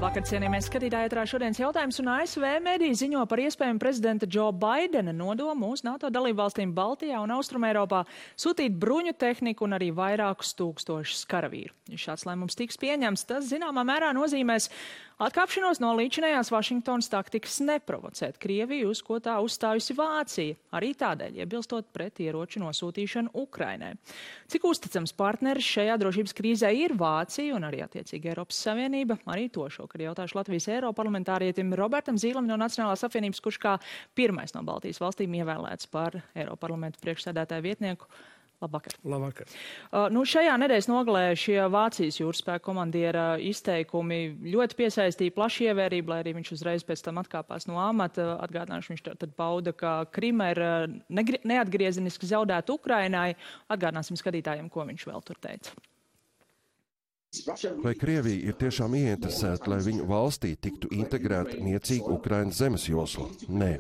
Labvakar, cienījamies skatītāji, ētrā šodienas jautājums, un ASV mediji ziņo par iespējamu prezidenta Joe Bidena nodomu uz NATO dalībvalstīm Baltijā un Austrumeiropā sūtīt bruņu tehniku un arī vairākus tūkstošus karavīru. Ja šāds lēmums tiks pieņemts, tas zināmā mērā nozīmēs atkāpšanos no līdzinējās Vašingtonas taktikas neprovocēt Krieviju, uz ko tā uzstājusi Vācija, arī tādēļ iebilstot pret ieroču nosūtīšanu Ukrainai. Cik uzticams partneris šajā drošības krīzē ir Vācija un arī attiecīgi Eiropas Savienība? Arī to šokar jautāšu Latvijas eiroparlamentārietim Robertam Zīlam no Nacionālās apvienības, kurš kā pirmais no Baltijas valstīm ievēlēts par Eiroparlamentu priekšsēdētāju vietnieku. Labvakar. Labvakar. Šajā nedēļas nogalē šie Vācijas jūraspēka komandiera izteikumi ļoti piesaistīja plašu ievērību, lai arī viņš uzreiz pēc tam atkāpās no amata. Atgādināšu, viņš tad pauda, ka Krima ir neatgriezeniski zaudēta Ukrainai. Atgādināsim skatītājiem, ko viņš vēl tur teica. Vai Krievija ir tiešām ieinteresēta, lai viņu valstī tiktu integrēta niecīga Ukrainas zemes josla? Nē.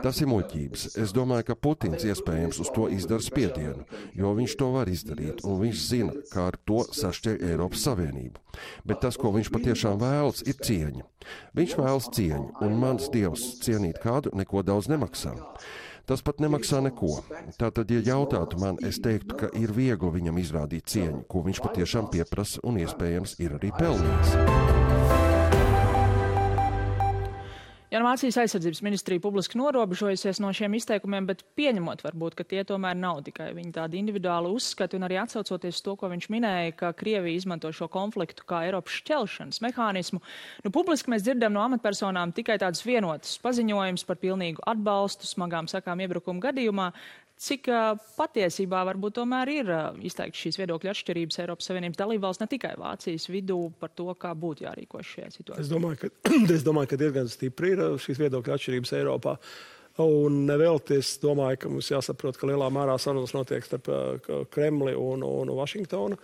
Tas ir muļķības. Es domāju, ka Putins iespējams uz to izdara spiedienu, jo viņš to var izdarīt, un viņš zina, kā ar to sašķeļ Eiropas Savienību. Bet tas, ko viņš patiešām vēlas, ir cieņa. Viņš vēlas cieņu, un mans dievs cienīt kādu neko daudz nemaksā. Tas pat nemaksā neko. Tātad, ja jautātu man, es teiktu, ka ir viegli viņam izrādīt cieņu, ko viņš patiešām pieprasa un iespējams ir arī pelnījis. Vācijas aizsardzības ministrija publiski norobežojusies no šiem izteikumiem, bet pieņemot varbūt, ka tie tomēr nav tikai viņa tādi individuāli uzskati un arī atsaucoties to, ko viņš minēja, ka Krievija izmanto šo konfliktu kā Eiropas šķelšanas mehānismu. Publiski mēs dzirdam no amatpersonām tikai tādus vienotus paziņojumus par pilnīgu atbalstu smagām sakām iebrukumu gadījumā. Cik patiesībā varbūt tomēr ir izteikti šīs viedokļa atšķirības Eiropas Savienības dalībvalsts, ne tikai Vācijas vidū, par to, kā būtu jārīkojas šajā situācijā? Es domāju, ka diezgan stipri ir šīs viedokļa atšķirības Eiropā. Un nevēlti es domāju, ka mums jāsaprot, ka lielā mērā sarunas notiek starp Kremli un Vašingtonu,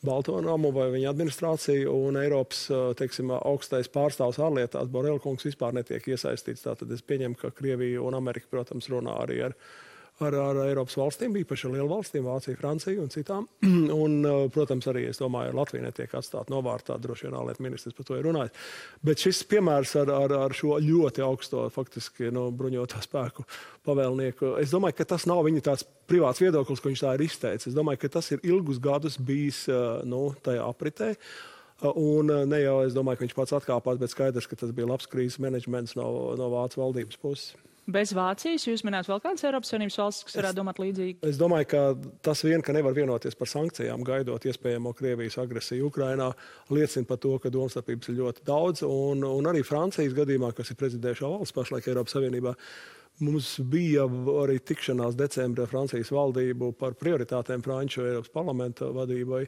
Balto namu vai viņa administrāciju, un Eiropas, teiksim, augstais pārstāvs ārlietās Borel kungs vispār netiek iesaistīts. Tātad es pieņemu, ka Krievija un Amerika, protams, runā arī ar Eiropas valstīm, īpaši ar lielu valstīm, Vāciju, Franciju un citām. Un, protams, arī, es domāju, Latvija netiek atstāta novārtā, droši vien ārlietu ministrs par to ir runājis. Bet šis piemērs ar šo ļoti augsto, faktiski, bruņoto spēku pavēlnieku, es domāju, ka tas nav viņa tāds privāts viedoklis, ko viņš tā ir izteicis. Es domāju, ka tas ir ilgus gadus bijis tajā apritē. Un ne jau, es domāju, ka viņš pats atkāpās, bet skaidrs, ka tas bija labs krīzes menedžments no Vācijas valdības puses. Bez Vācijas jūs minējat vēl kādas Eiropas Savienības valstis, kas varētu domāt līdzīgi? Es domāju, ka tas vien, ka nevar vienoties par sankcijām, gaidot iespējamo Krievijas agresiju Ukrainā, liecina par to, ka domstarpības ir ļoti daudz. Un arī Francijas gadījumā, kas ir prezidējušā valsts pašlaik Eiropas Savienībā, mums bija arī tikšanās decembrī Francijas valdību par prioritātēm Franču Eiropas parlamenta vadībai.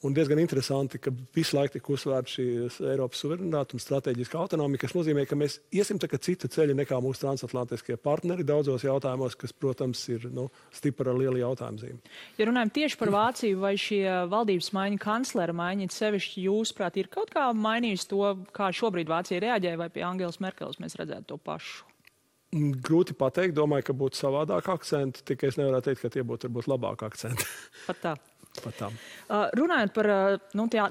Un diezgan interesanti, ka visu laiku tika uzsvērta šī Eiropas suverenitāte un strateģiska autonomija, kas nozīmē, ka mēs iesim citu ceļu nekā mūsu transatlantiskie partneri daudzos jautājumos, kas, protams, ir stipra ar lielu jautājumu zīmi. Ja runājam tieši par Vāciju, vai šie valdības maiņa, kanclera maiņa, sevišķi jūsuprāt, ir kaut kā mainījis to, kā šobrīd Vācija reaģēja, vai pie Angelas Merkeles mēs redzētu to pašu? Grūti pateikt, domāju, ka būtu savādāk akcenti, tikai es nevaru teikt, ka tie būtu varbūt labāk akcenti. Pat tā. Runājot par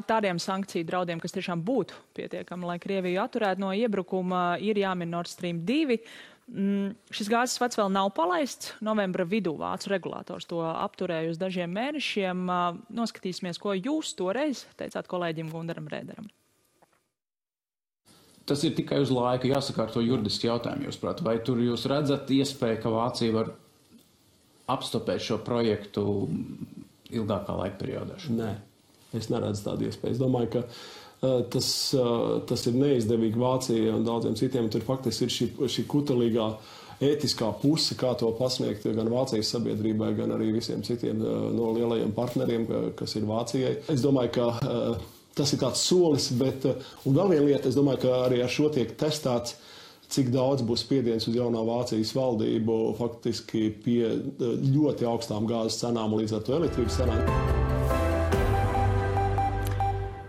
tādiem sankciju draudiem, kas tiešām būtu pietiekami, lai Krieviju atturētu no iebrukuma, ir jāmin Nord Stream 2. Šis gāzes vads vēl nav palaists. Novembra vidū vācu regulators to apturēja uz dažiem mēnešiem. Noskatīsimies, ko jūs toreiz teicāt kolēģim Gundaram Rēderam. Tas ir tikai uz laiku jāsakārto juridiski jautājumi, jūsuprāt. Vai tur jūs redzat iespēju, ka Vācija var apstopēt šo projektu ilgākā laika periodā? Nē, es neredzu tādu iespēju. Es domāju, ka tas ir neizdevīgi Vācijai un daudziem citiem. Tur faktiski ir šī kutelīgā ētiskā puse, kā to pasniegt gan Vācijas sabiedrībai, gan arī visiem citiem no lielajiem partneriem, kas ir Vācijai. Es domāju, ka tas ir tāds solis, bet, un vēl viena lieta, es domāju, ka arī ar šo tiek testēts, cik daudz būs spiediens uz jaunā Vācijas valdību faktiski pie ļoti augstām gāzes cenām un līdz ar to elektrības cenām.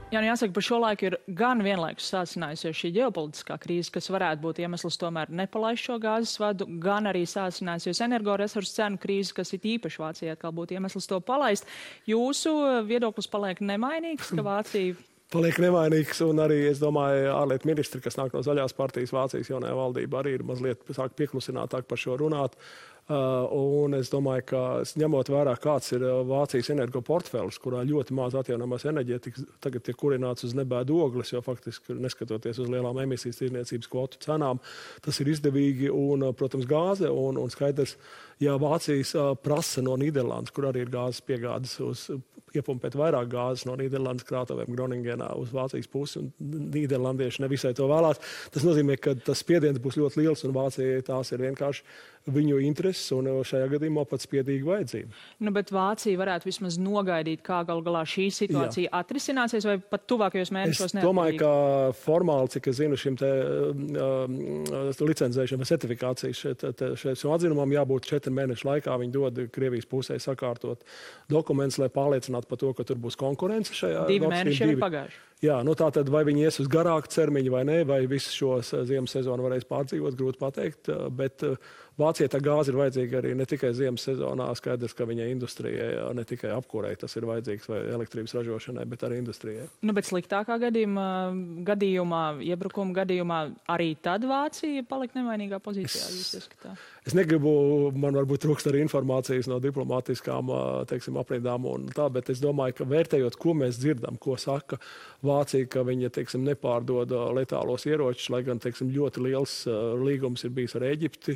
Jā, jāsaka, par šo laiku ir gan vienlaikus sācinājusies šī ģeopolitiskā krīze, kas varētu būt iemesls tomēr nepalaist šo gāzes vadu, gan arī sācinājusies energoresursu cenu krīze, kas ir īpaši Vācijai atkal būtu iemesls to palaist. Jūsu viedoklis paliek nemainīgs, ka Vācija paliek nevainīgs, un arī, es domāju, ārlietu ministri, kas nāk no Zaļās partijas, Vācijas jaunajā valdībā, arī ir mazliet sāk pieklusinātāk par šo runāt. Un es domāju, ka ņemot vērā, kāds ir Vācijas energoportfelis, kurā ļoti maz atjaunamās enerģētikas tagad tiek kurināts uz nebēdu ogles, jo faktiski neskatoties uz lielām emisijas tirdzniecības kvotu cenām, tas ir izdevīgi un, protams, gāze un skaidrs, ja Vācijas prasa no Nīderlandes, kur arī ir gāzes piegādes uz iepumpēt vairāk gāzes no Nīderlandes krātuvēm Groningenā uz Vācijas pusi, un nīderlandieši nevisai to vēlās. Tas nozīmē, ka tas spiediens būs ļoti liels, un Vācijai tās ir vienkārši viņu intereses, un šajā gadījumā pat spiedīga vajadzība. Nu, bet Vācija varētu vismaz nogaidīt, kā gal galā šī situācija atrisināsies, vai pat tuvākajos mēnešos neatkarīgi? Es domāju, ka formāli, cik es zinu, šim te licencēšana vai certifikācijas šeit atzinumam jābūt 4 mēnešu laikā. Viņi dod Krievijas pusē sakārtot dokumentus, lai pārliecinātu par to, ka tur būs konkurence šajā. 2 mēneši jau ir pagājuši. Jā, nu tā tad vai viņi ies uz garāku termiņu vai nē, vai visu šo ziemas sezonu varēs pārdzīvot, grūti pateikt, bet Vācijai tā gāze ir vajadzīga arī ne tikai ziemas sezonā, skaidrs, ka viņai industrijai ne tikai apkūrei tas ir vajadzīgs vai elektrības ražošanai, bet arī industrijai. Nu, bet sliktākā gadījumā, iebrukuma gadījumā arī tad Vācija palika nevainīgā pozīcijā, jūs ieskatā? Es negribu, man varbūt trūkst arī informācijas no diplomātiskām, teiksim, aprindām un tā, bet es domāju, ka vērtējot, ko mēs dzirdam, ko saka Vācija, ka viņa, teiksim, nepārdod letālos ieročus, lai gan, teiksim, ļoti liels līgums ir bijis ar Ēģipti,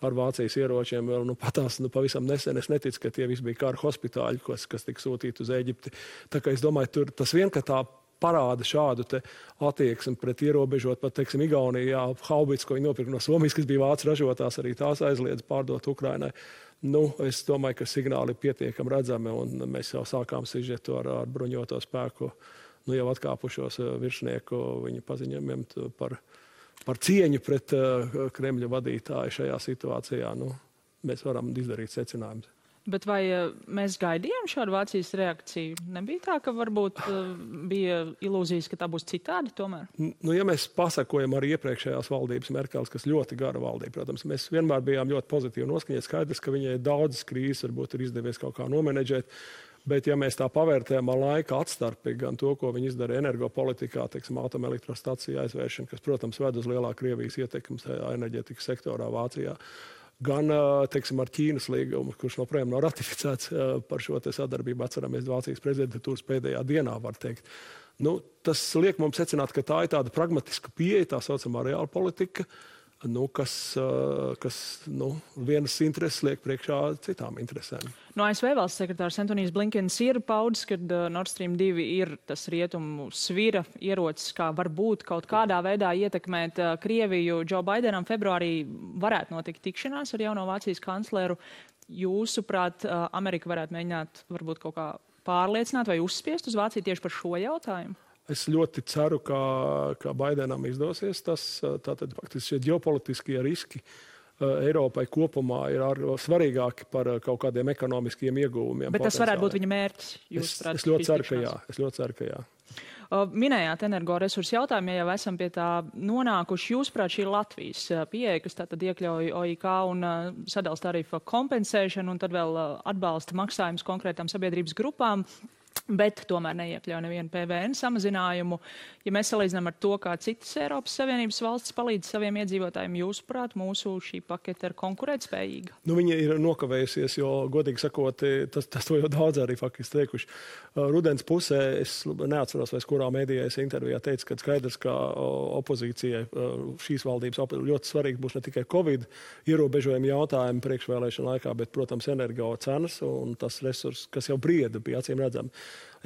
ar Vācijas ieročiem vēl, patās, pavisam nesen. Es neticu, ka tie visi bija kara hospitāļi, kas tika sūtīti uz Ēģipti. Tā kā es domāju, tur tas vien, ka tā parāda šādu te attieksmi pret ierobežot, pat, teiksim, Igaunijā haubits, ko viņi nopirka no Somijas, kas bija vācu ražotās, arī tās aizliedz pārdot Ukrainai. Nu, es domāju, ka signāli ir pietiekami redzami, un mēs jau sākām sižetu ar bruņoto spēku, jau atkāpušos virsnieku viņa paziņojumiem par cieņu pret Kremļa vadītāju šajā situācijā. Nu, mēs varam izdarīt secinājumus. Bet vai mēs gaidījām šādu Vācijas reakciju? Nebija tā, ka varbūt bija ilūzijas, ka tā būs citādi tomēr? Nu, ja mēs pasakojam arī iepriekšējās valdības Merkels, kas ļoti gara valdība, protams, mēs vienmēr bijām ļoti pozitīvi noskaņot. Skaidrs, ka viņai daudzas krīzes varbūt ir izdevies kaut kā nomenedžēt. Bet, ja mēs tā pavērtējam ar laika atstarpi, gan to, ko viņi izdara energopolitikā, teiksim, atomelektrostaciju aizvēršana, kas, protams, ved uz lielā Krievijas ietekmes enerģētikas sektorā Vācijā, gan, teiksim, ar Ķīnas līgumu, kurš joprojām nav ratificēts par šo te sadarbību, atceramies Vācijas prezidentūras pēdējā dienā, var teikt. Nu, tas liek mums secināt, ka tā ir tāda pragmatiska pieeja, tā saucamā reāla politika, kas vienas intereses liek priekšā citām interesēm. No ASV valsts sekretārs Antonijs Blinkens ir paudis, ka Nord Stream 2 ir tas rietumu svira ierocis, kā varbūt kaut kādā veidā ietekmēt Krieviju. Džo Baidenam februārī varētu notikt tikšanās ar jauno Vācijas kancleru. Jūsuprāt, Amerika varētu mēģināt varbūt kaut kā pārliecināt vai uzspiest uz Vāciju tieši par šo jautājumu? Es ļoti ceru, ka Baidenam izdosies tas. Tātad faktiski šie ģeopolitiskie riski Eiropai kopumā ir svarīgāki par kaut kādiem ekonomiskiem ieguvumiem. Bet tas varētu būt viņa mērķis? Es ļoti ceru, ka jā. Minējāt energoresursu jautājumu, ja jau esam pie tā nonākuši. Jūsuprāt, šī ir Latvijas pieeja, kas tātad iekļauj OIK un sadals tarifa kompensēšanu un tad vēl atbalsta maksājumus konkrētām sabiedrības grupām, bet tomēr neiekļauj nevienu PVN samazinājumu. Ja mēs salīdzinām ar to, kā citas Eiropas Savienības valstis palīdz saviem iedzīvotājiem, jūsuprāt, mūsu šī pakete ir konkurētspējīga? Nu, viņa ir nokavējusies, jo, godīgi sakot, tas to jau daudz arī faktiski teikuši. Rudens pusē, es neatceros, vai kurā mēdījā es intervijā teicu, ka skaidrs, ka opozīcijai šīs valdības ļoti svarīgi būs ne tikai Covid ierobežojumi jautājumi priekšvēlēšana laikā, bet, protams, energo cenas un tas resurs, kas jau brieda bija acīm redzami.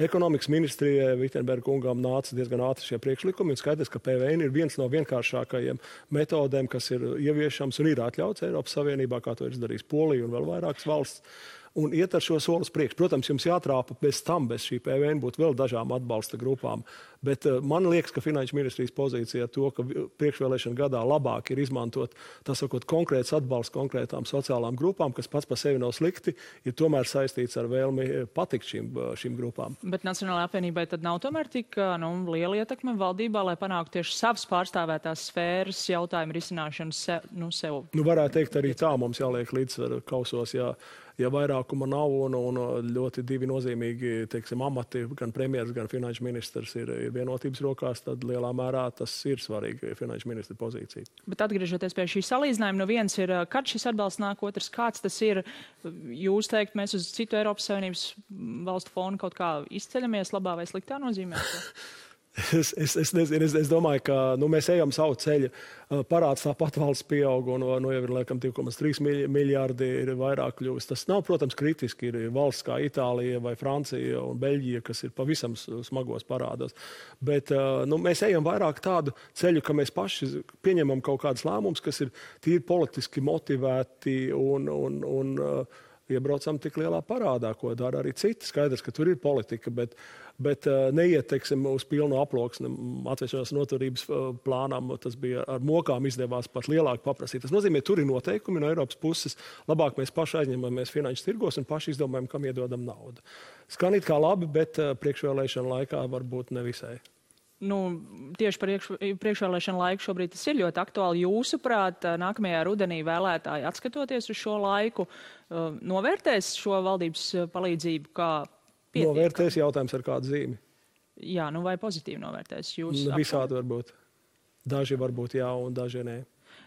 Ekonomikas ministrijai Vitenberga kungām nāca diezgan ātri šie priekšlikumi, un skaidrs, ka PVN ir viens no vienkāršākajiem metodēm, kas ir ieviešams un ir atļauts Eiropas Savienībā, kā to ir izdarījis Polija un vēl vairākas valsts. Un iet ar šo soli uz priekšu. Protams, jums jātrāpa bez šī PVN būtu vēl dažām atbalsta grupām. Bet man liekas, ka Finanšu ministrijas pozīcija to, ka priekšvēlēšana gadā labāk ir izmantot, tā sakot, konkrēts atbalsts konkrētām sociālām grupām, kas pats par sevi nav slikti, ir tomēr saistīts ar vēlmi patikt šīm grupām. Bet Nacionālajai apvienībai tad nav tomēr tik liela ietekme valdībā, lai panāktu tieši savas pārstāvētās sfēras jautājumu risināšanu sev? Nu, varētu teikt arī tā, mums jāliek līdzsvaru kausos, ja vairāk panākuma nav un ļoti divi nozīmīgi, teiksim, amati, gan premjeras, gan finanšu ministrs ir vienotības rokās, tad lielā mērā tas ir svarīgi finanšu ministra pozīcija. Bet atgriežoties pie šī salīdzinājuma, viens ir, kad šis atbalsts nāk, otrs, kāds tas ir. Jūs teikt, mēs uz citu Eiropas Savienības valstu fonu kaut kā izceļamies labā vai sliktā nozīmē? Es nezinu, es domāju, ka mēs ejam savu ceļu. Parāds tāpat valsts pieaug un jau ir, laikam, 2,3 miljārdi ir vairāk kļuvis. Tas nav, protams, kritiski. Ir valsts kā Itālija vai Francija un Beļģija, kas ir pavisam smagos parādos. Bet mēs ejam vairāk tādu ceļu, ka mēs paši pieņemam kaut kādus lēmumus, kas ir tīri politiski motivēti un iebraucam tik lielā parādā, ko dara arī citi. Skaidrs, ka tur ir politika, bet neiet, teiksim, uz pilnu aploksni atvesļošanās noturības plānām. Tas bija ar mokām izdevās pat lielāk paprasīt. Tas nozīmē, tur ir noteikumi no Eiropas puses. Labāk mēs paši aizņemamies finanšu tirgos un paši izdomājam, kam iedodam naudu. Skan it kā labi, bet priekšvēlēšana laikā varbūt nevisai. Tieši par priekšvēlēšanu laiku šobrīd tas ir ļoti aktuāli. Jūsuprāt, nākamajā rudenī vēlētāji, atskatoties uz šo laiku, novērtēs šo valdības palīdzību kā pietiekami? Novērtēs, jautājums ar kādu zīmi. Jā, vai pozitīvi novērtēs? Visādi varbūt. Daži varbūt jā un daži nē.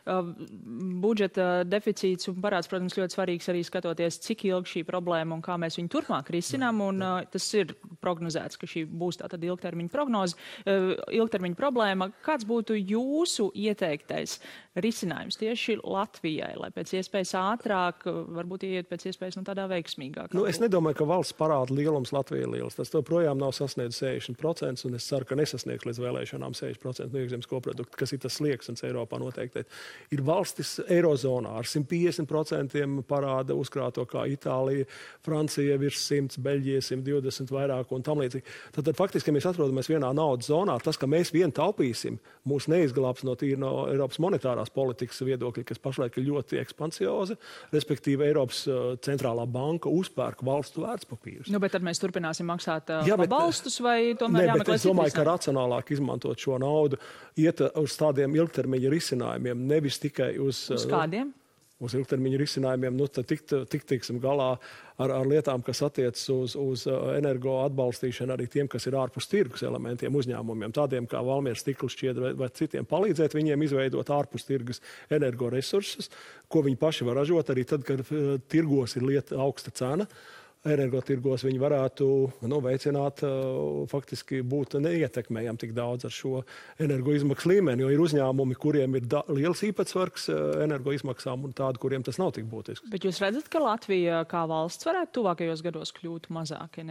Budžeta deficīts un parāds, protams, ļoti svarīgs arī skatoties, cik ilgi šī problēma un kā mēs viņu turpmāk risinām. Un tas ir prognozēts, ka šī būs tātad ilgtermiņa prognoze, ilgtermiņa problēma. Kāds būtu jūsu ieteiktais risinājums tieši Latvijai, lai pēc iespējas ātrāk, varbūt ieiet pēc iespējas tādā veiksmīgāk? Es nedomāju, ka valsts parāda lielums Latvijai ir liels. Tas projām nav sasniedz 60%, un es ceru, ka nesasniegs līdz vēlēšanām 60% no iekšzemes koprodukta, kas ir tas slieksnis Eiropā noteikti. Ir valstis Eirozonā ar 150% parāda uzkrāto kā Itālija, Francija virs 100, Beļģija 120 vairāk un tam līdzīgi. Tad faktiski, ja mēs atrodamies vienā naudas zonā, tas, ka mēs vien taupīsim, mūs neizglābs no Eiropas monetārās politikas viedokļa, kas pašlaik ir ļoti ekspansioza, respektīvi Eiropas centrālā banka uzpērk valstu vērtspapīrus. Bet tad mēs turpināsim maksāt pabalstus vai tomēr jāmeklē es domāju, ka racionālāk izmantot šo naudu, iet uz tādiem ilgtermiņa risinājumiem, nevis tikai uz kādiem? Uz ilgtermiņa risinājumiem, tad tiksim galā ar lietām, kas attiecas uz energo atbalstīšanu arī tiem, kas ir ārpus tirgus elementiem uzņēmumiem, tādiem kā Valmieras stikls šķiedra vai citiem, palīdzēt viņiem izveidot ārpus tirgus energoresursus, ko viņi paši var ražot arī tad, kad tirgos ir augsta cena. Energotirgos viņi varētu veicināt, faktiski būt neietekmējami tik daudz ar šo energoizmaksu līmeni, jo ir uzņēmumi, kuriem ir liels īpatsvars energoizmaksām un tādi, kuriem tas nav tik būtisks. Bet jūs redzat, ka Latvija kā valsts varētu tuvākajos gados kļūt mazāk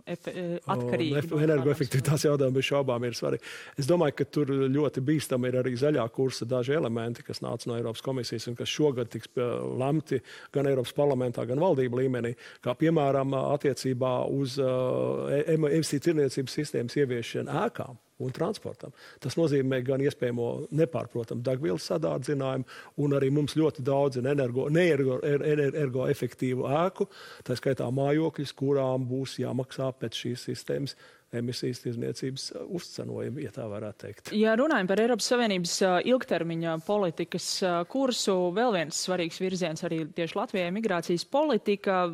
atkarīgi? Energoefektivitātes jautājumi bez šaubām ir svarīgi. Es domāju, ka tur ļoti bīstami ir arī zaļā kursa daži elementi, kas nāca no Eiropas komisijas un kas šogad tiks lemti gan Eiropas parlamentā, gan valdību līmenī, kā piemēram attiecībā uz emisiju tirniecības sistēmas ieviešanu ēkām un transportam. Tas nozīmē gan iespējamo nepārprotamu degvielas sadārdzinājumu, un arī mums ļoti daudz energoefektīvu ēku, tā skaitā mājokļus, kurām būs jāmaksā pēc šīs sistēmas emisijas tirdzniecības uzcenojumi, ja tā varētu teikt. Ja runājam par Eiropas Savienības ilgtermiņa politikas kursu, vēl viens svarīgs virziens arī tieši Latvijai migrācijas politika.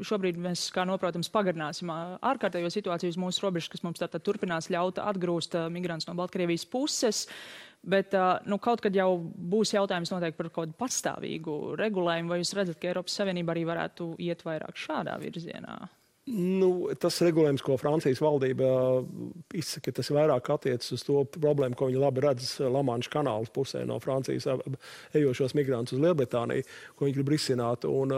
Šobrīd mēs, kā noprotams, pagarināsim ārkārtējo situāciju uz mūsu robežas, kas mums tātad turpinās ļaut atgrūst migrants no Baltkrievijas puses. Bet kaut kad jau būs jautājums noteikti par kaut kādu pastāvīgu regulējumu, vai jūs redzat, ka Eiropas Savienība arī varētu iet vairāk šādā virzienā? Tas regulējums, ko Francijas valdība izsaka, tas vairāk attiecas uz to problēmu, ko viņi labi redz Lamanša kanāla pusē no Francijas ejošos migrantus uz Lielbritāniju, ko viņi grib risināt. Un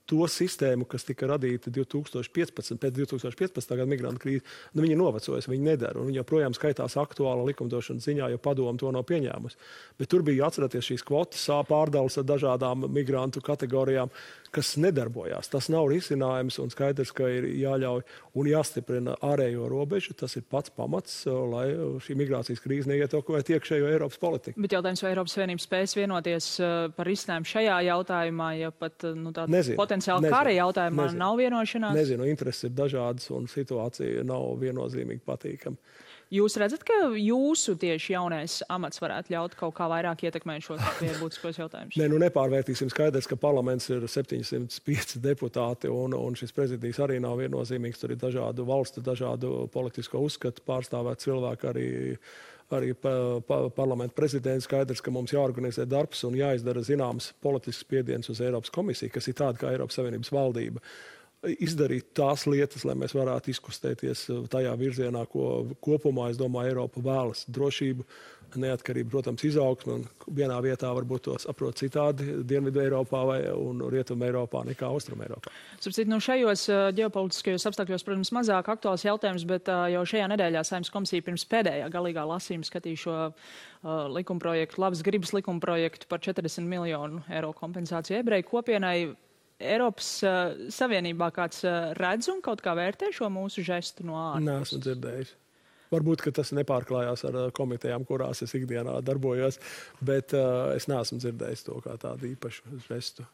to sistēmu, kas tika radīta pēc 2015. Gada migrantu krīze, viņi novecojas, viņi nedara. Un viņi joprojām skaitās aktuāla likumdošanas ziņā, jo padoma to nav pieņēmusi. Bet tur bija, atcerieties, šīs kvotas pārdales ar dažādām migrantu kategorijām, kas nedarbojās. Tas nav risinājums un skaidrs, ka ir jāļauj un jāstiprina ārējo robežu. Tas ir pats pamats, lai šī migrācijas krīze neietekmētu iekšējo Eiropas politiku. Bet jautājums, vai Eiropas Savienība spēs vienoties par risinājumu šajā jautājumā, ja pat potenciāli kara jautājumā nav vienošanās? Nezinu, intereses ir dažādas un situācija nav viennozīmīgi patīkama. Jūs redzat, ka jūsu tieši jaunais amats varētu ļaut kaut kā vairāk ietekmēt šos būtiskos jautājumus? Nē, nepārvērtīsim. Skaidrs, ka parlaments ir 705 deputāti, un šis prezidijs arī nav viennozīmīgs. Tur ir dažādu valstu, dažādu politisko uzskatu pārstāvēt cilvēku, arī parlamenta prezidents. Skaidrs, ka mums jāorganizē darbs un jāizdara zināms politisks spiediens uz Eiropas komisiju, kas ir tāda kā Eiropas Savienības valdība. Izdarīt tās lietas, lai mēs varētu izkustēties tajā virzienā, ko kopumā, es domāju, Eiropa vēlas. Drošību, neatkarību, protams, izaugsmu, un vienā vietā varbūt to saprot citādi Dienvidu Eiropā un Rietumu Eiropā nekā Austrumu Eiropā. Šajos ģeopolitiskajos apstākļos, protams, mazāk aktuāls jautājums, bet jau šajā nedēļā Saeimas komisija pirms pēdējā galīgā lasījuma skatīja šo likumprojektu, labas gribas likumprojektu par 40 miljonu eiro kompensāciju ebreju kopienai. Eiropas Savienībā kāds redz un kaut kā vērtē šo mūsu žestu no ārpuses? Nē, esmu dzirdējis. Varbūt, ka tas nepārklājās ar komitejām, kurās es ikdienā darbojos, bet es neesmu dzirdējis to kā tādu īpašu žestu.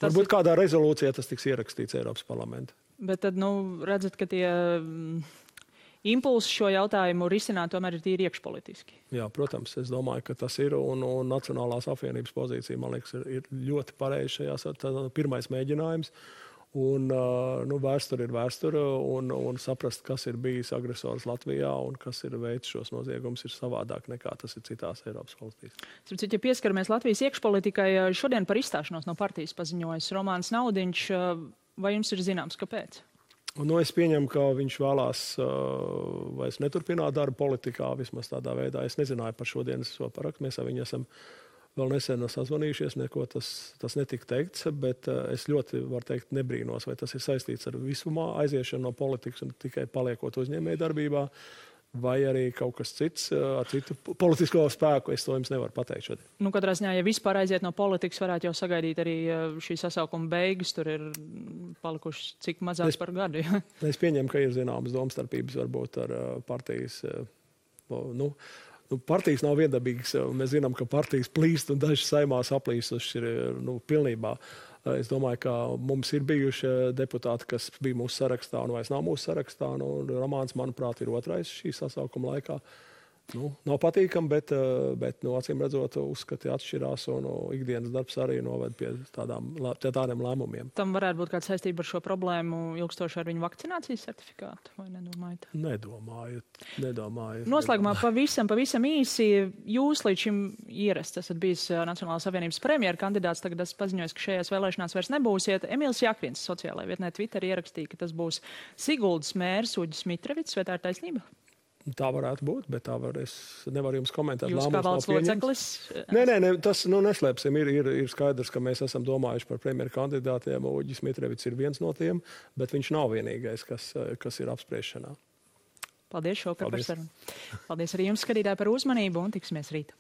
Varbūt kādā rezolūcijā tas tiks ierakstīts Eiropas parlamentā. Bet tad, redzat, ka tie impulsi šo jautājumu risināt tomēr ir tīri iekšpolitiski. Jā, protams, es domāju, ka tas ir, un Nacionālās apvienības pozīcija, man liekas, ir ļoti pareizi šajās. Pirmais mēģinājums, un vēsture ir vēsture, un saprast, kas ir bijis agresors Latvijā un kas ir veids šos noziegumus, ir savādāk nekā tas ir citās Eiropas valstīs. Ja pieskaramies Latvijas iekšpolitikai, šodien par izstāšanos no partijas paziņojas Romāns Naudiņš. Vai jums ir zināms, kāpēc? Es pieņemu, ka viņš vēlās vairs neturpināt darbu politikā, vismaz tādā veidā. Es nezināju par šodienas parakstu. Mēs ar viņu esam vēl nesen sazvanījušies, neko tas netika teikts, bet es ļoti, varu teikt, nebrīnos, vai tas ir saistīts ar visumā aiziešanu no politikas un tikai paliekot uzņēmēju darbībā, vai arī kaut kas cits ar citu politisko spēku. Es to jums nevaru pateikt šodien. Katrā ziņā, ja vispār aiziet no politikas, varētu jau sagaidīt arī šī sasaukuma beigas. Tur ir palikuši cik mazāk par gadu. Ja? Es pieņemu, ka ir zināmas domstarpības varbūt ar partijas. Partijas nav viendabīgas. Mēs zinām, ka partijas plīst un daži Saeimā saplīsuši ir pilnībā. Es domāju, ka mums ir bijuši deputāti, kas bija mūsu sarakstā un vairs nav mūsu sarakstā. Romāns, manuprāt, ir otrais šī sasaukuma laikā. Nav patīkami, bet acīm redzot, uzskati atšķirās un ikdienas darbs arī noved pie tādiem lēmumiem. Tam varētu būt kāda saistība ar šo problēmu ilgstoši ar viņu vakcinācijas certifikātu, vai nedomājat? Nedomāju. Noslēgumā pavisam īsi. Jūs līdz šim ierasts esat bijis Nacionālās apvienības premjera kandidāts, tagad esat paziņojis, ka šajās vēlēšanās vairs nebūsiet. Emīls Jakvins sociālajā vietnē Twitter ierakstīja, ka tas būs Siguldas mērs Uģis Mitrevits, vai tā ir taisnība? Tā varētu būt, bet es nevaru jums komentēt. Jūs kā valsts loceklis? Nē, tas neslēpsim. Ir skaidrs, ka mēs esam domājuši par premjeru kandidātiem. Uģis Mitrevits ir viens no tiem, bet viņš nav vienīgais, kas ir apspriešanā. Paldies šovakar par sarunu. Paldies arī jums, skatītāji, par uzmanību un tiksimies rīt.